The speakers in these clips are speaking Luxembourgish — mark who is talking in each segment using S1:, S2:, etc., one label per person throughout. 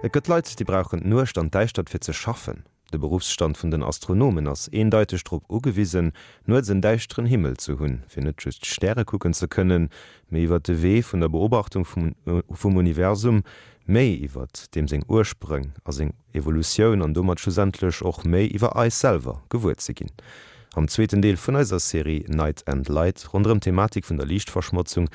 S1: Et gëtt Leit, déi brauchen d'Nuecht an d'Däischtert fir ze schaffen. De Beruffsstand vun den Astronomen ass eendeiteg drop ugewisen, nuets en däischteren Himmel ze hunn, fir net just d'Stäre kucken ze kënnen, mee iwwer de Wee vun der Beobachtung vum Universum méi iwwer deem seng Ursprëng a seng Evolutioun an domat schlussendlech och méi iwwer eis selwer gewuer ze ginn. Am zweeten Deel vun eiser Serie Night and Light ronderëm d'Thematik vun der Liichtverschmotzung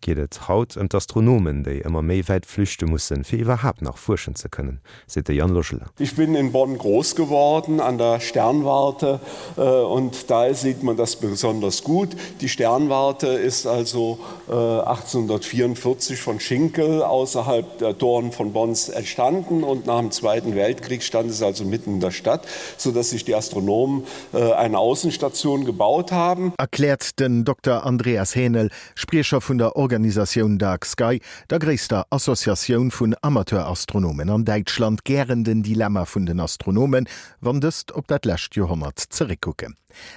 S1: geet et haut ëm d'Astronomen, déi ëmmer méi wäit flüchte mussen, fir iwwerhaapt nach fuerschen ze kënnen, seet de Yann Logelin.
S2: Ich bin in Bonn groß geworden an der Sternwarte und da sieht man das besonders gut. Die Sternwarte ist also 1844 von Schinkel außerhalb der Toren von Bonns entstanden und nach dem Zweiten Weltkrieg stand es also mitten in der Stadt, so dass sich die Astronomen eine Außenstation gebaut haben.
S3: Erkläert den Dokter Andreas Hänel, Spriecher vun der Organisatioun Dark Sky, der gréisster Associatioun vun Amateurastronomen an Däitschland, gären den Dilemma vun den Astronomen, wann dëst op dat lescht Joerhonnert zeréckkucken.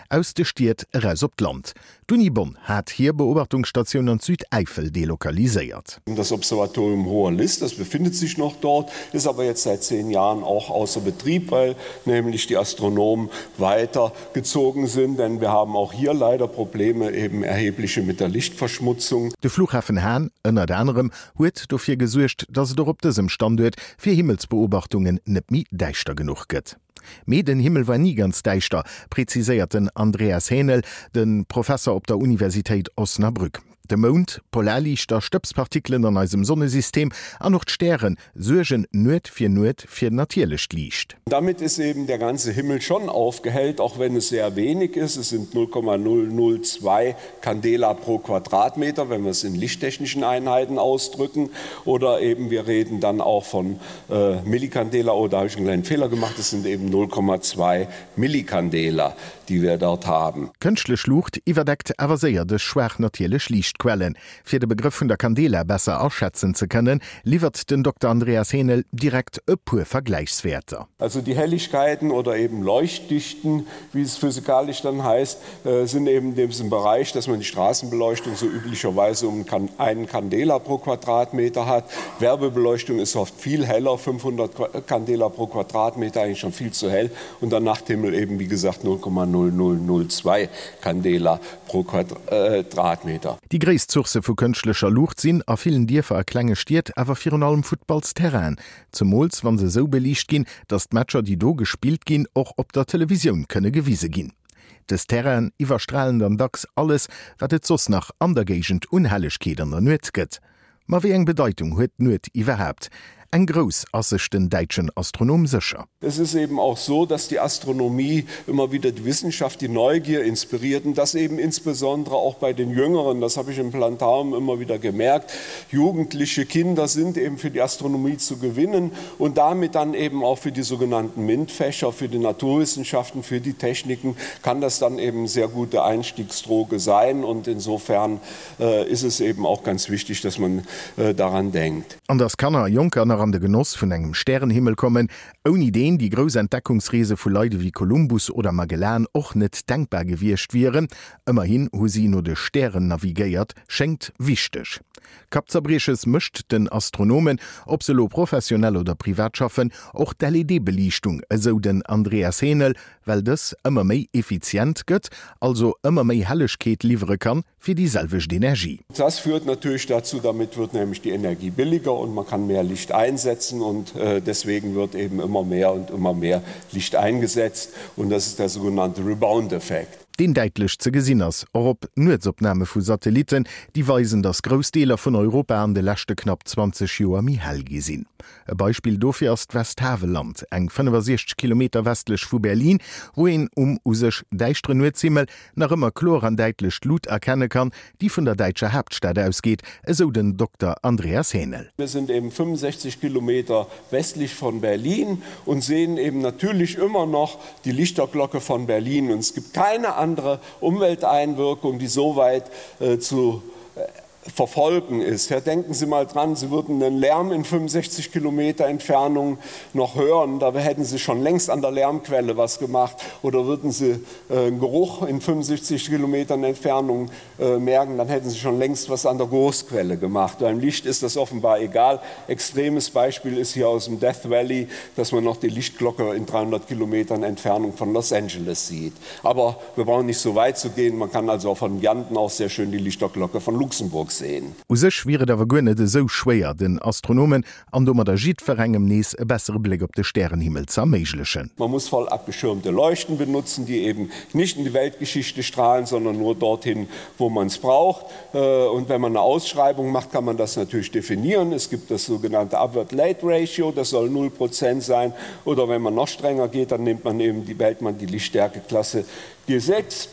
S3: Aus de Stied eraus op d'Land. D'Uni Bonn hat hir Beobachtungsstatioun an d'Südäifel delokaliséiert.
S2: Das Observatorium Hoher List, das befindet sich noch dort, ist aber jetzt seit zehn Jahren auch außer Betrieb, weil nämlich die Astronomen weiter gezogen sind, denn wir haben auch hier leider Probleme eben erhebliche mit der Lichtverschmutzung.
S3: De Flughafen Hahn, ënnert anerem, huet dofir gesuergt, datt et och op dësem Standuert fir Himmelsbeobachtungen net méi däischter genuch gëtt. Mee den Himmel war ni ganz däischter, preziséiert den Andreas Hänel, de Professer op der Universitéit Osnabrück. De Mound, Polarliichter, Stëbspartikelen an eisem Sonnesystem an och d'Stäre suergen Nuet fir Nuet fir natierlecht Liicht.
S2: Damit ist eben der ganze Himmel schon aufgehellt, auch wenn es sehr wenig ist, es sind 0,002 Candela pro Quadratmeter, wenn wir es in lichttechnischen Einheiten ausdrücken, oder eben wir reden dann auch von Millicandela, oh da habe ich einen kleinen Fehler gemacht, es sind eben 0,2 Millicandela, die wir dort haben.
S3: Kënschtlech Luucht iwwerdeckt awer séier dës schwaach natierlech Liichtquellen. Fir de Begrëff vun der Candela besser aschätzen ze kënnen, liwwert den Dokter Andreas Hänel direkt e puer Vergläichswäerter.
S2: Also die Helligkeiten oder eben Leuchtdichten, wie es physikalisch dann heißt, sind eben in diesem Bereich, dass man die Straßenbeleuchtung so üblicherweise um einen Candela pro Quadratmeter hat. Werbebeleuchtung ist oft viel heller, 500 Candela pro Quadratmeter, eigentlich schon viel zu hell. Und der Nachthimmel eben, wie gesagt, 0,0002 Candela pro Quadratmeter.
S3: Déi gréisst Sourcë vu kënschtlecher Luucht sinn a villen Dierfer a klenge Stied awer virun allem Futtballsterrainen, zemools wa se esou beliicht ginn, datt d'Matcher, déi do gespillt ginn, och op der Televisioun kënne gewise ginn. Dës Terrainen iwwerstralen dann dacks alles, wat et soss nach an der Géigend un Hellegkeet an der Nuet gëtt. Ma wéi eng Bedeitung huet d'Nuet iwwerhaapt? Eng grouss, ass sech den däitschen Astronom sécher.
S2: Es ist eben auch so, dass die Astronomie immer wieder die Wissenschaft, die Neugier inspiriert und das eben insbesondere auch bei den Jüngeren, das habe ich im Planetarium immer wieder gemerkt, Jugendliche Kinder sind eben für die Astronomie zu gewinnen und damit dann eben auch für die sogenannten MINT-Fächer, für die Naturwissenschaften, für die Techniken kann das dann eben sehr gute Einstiegsdroge sein und insofern ist es eben auch ganz wichtig, dass man daran denkt.
S3: An dass Kanner a Jonker nach an de Genoss vun engem Stärenhimmel kommen, ouni deen déi grouss Entdeckungsreese vu Leit ewéi Kolumbus oder Magellan och net denkbar gewiescht wieren, ëmmerhin hu si no de Stären navigéiert, schéngt wichteg. Kappzerbrieches mécht den Astronomen, ob se elo professionell oder privat schaffen, och d'LED-Beliichtung, esou den Andreas Hänel, well dës ëmmer méi effizient gëtt, also ëmmer méi Hellegkeet liwwere kann fir déi selwecht Energie.
S2: Das führt natürlich dazu, damit wird nämlich die Energie billiger und man kann mehr Licht einsetzen und deswegen wird eben immer mehr und immer mehr Licht eingesetzt und das ist der sogenannte Rebound-Effekt.
S3: Deen däitlech ze gesinn ass, och op Nuetsopname vu Satellitten, déi weisen, datt grouss Deeler vun Europa an de leschte knapp 20 Joer méi hell gi sinn. E Beispill dofir ass d'Westhavelland, eng 65 Kilometer westlech vu Berlin, wou een um u sech däischteren Nuetshimmel nach ëmmer kloer an däitlech d'Lut erkenne kann, déi vun der däitscher Haaptstad ausgeet, esou den Dokter Andreas Hänel.
S2: Wir sind eben 65 Kilometer westlich von Berlin und sehen eben natürlich immer noch die Lichterglocke von Berlin. Und es gibt keine andere Umwelteinwirkung, die so weit zu. Verfolgen ist. Herr, denken Sie mal dran, Sie würden den Lärm in 65 Kilometer Entfernung noch hören, da hätten Sie schon längst an der Lärmquelle was gemacht oder würden Sie äh, einen Geruch in 75 Kilometern Entfernung äh, merken, dann hätten Sie schon längst was an der Großquelle gemacht. Beim Licht ist das offenbar egal. Extremes Beispiel ist hier aus dem Death Valley, dass man noch die Lichtglocke in 300 Kilometern Entfernung von Los Angeles sieht. Aber wir brauchen nicht so weit zu gehen. Man kann also auch von Janten auch sehr schön die Lichterglocke von Luxemburg sehen.
S3: U sech wier et awer guer net esou schwéier, den Astronomen an domadder jiddwerengem nees e bessere Bléck op de Stärenhimmel ze erméiglechen.
S2: Man muss voll abgeschirmte Leuchten benutzen, die eben nicht in die Weltgeschichte strahlen, sondern nur dorthin, wo man es braucht. Und wenn man eine Ausschreibung macht, kann man das natürlich definieren. Es gibt das sogenannte Upward Late Ratio, das soll 0 Prozent sein. Oder wenn man noch strenger geht, dann nimmt man eben die, wählt man die Lichtstärkeklasse G6.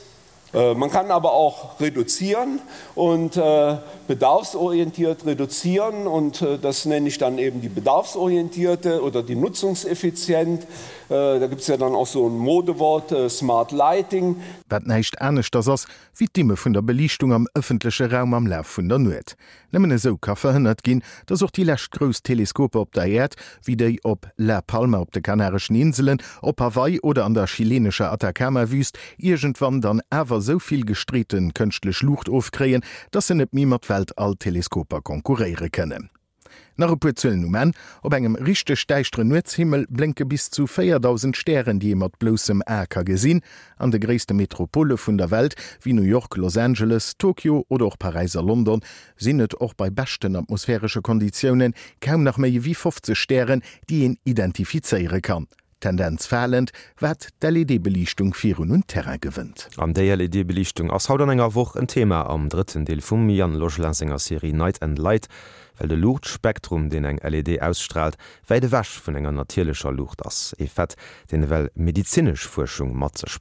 S2: Äh, man kann aber auch reduzieren und äh, bedarfsorientiert reduzieren und äh, das nenne ich dann eben die bedarfsorientierte oder die nutzungseffizient. Da gibt es ja dann auch so ein Modewort Smart Lighting.
S3: Wat näischt aneschters ass wéi d'Dimme vun der Beliichtung am ëffentleche Raum am Laf vun der Nuet. Nëmmen esou ka verhënnert ginn, datt och déi lescht grouss Teleskoper op der Äerd, wéi déi op La Palma op de Kanareschen Inselen, op Hawaii oder an der chilenescher Atacama-Wüst, iergendwann dann awer esou vill gestreete kënschtlech Luucht ofkréien, datt se net méi mat Weltall-Teleskoper konkurréiere kënnen. Nach e puer Zuelen um Enn, Op engem richteg däischteren Nuetshimmel blénke bis zu 4.000 Stären, déi ee mat bloussem A ka gesinn. An de gréisste Metropole vun der Welt, wéi New York, Los Angeles, Tokio oder och Paräis a London, sinn et och bei beschten atmosphäresche Konditioune kaum nach méi ewéi 50 Stären, déi een identifizéiere kann. Tendenz falend, wat d'LED-Beliichtung virun un Terrain gewënnt.
S1: An déi LED-Beliichtung ass haut an enger Woch en Thema am drëtten Deel vum Yann Logelin senger Serie Night and Light, well de Luuchtspektrum, deen eng LED ausstraalt, wäit ewech vun enger natierlecher Luucht ass. E Fait, deen ewell medezinesch Fuerschung mat sech.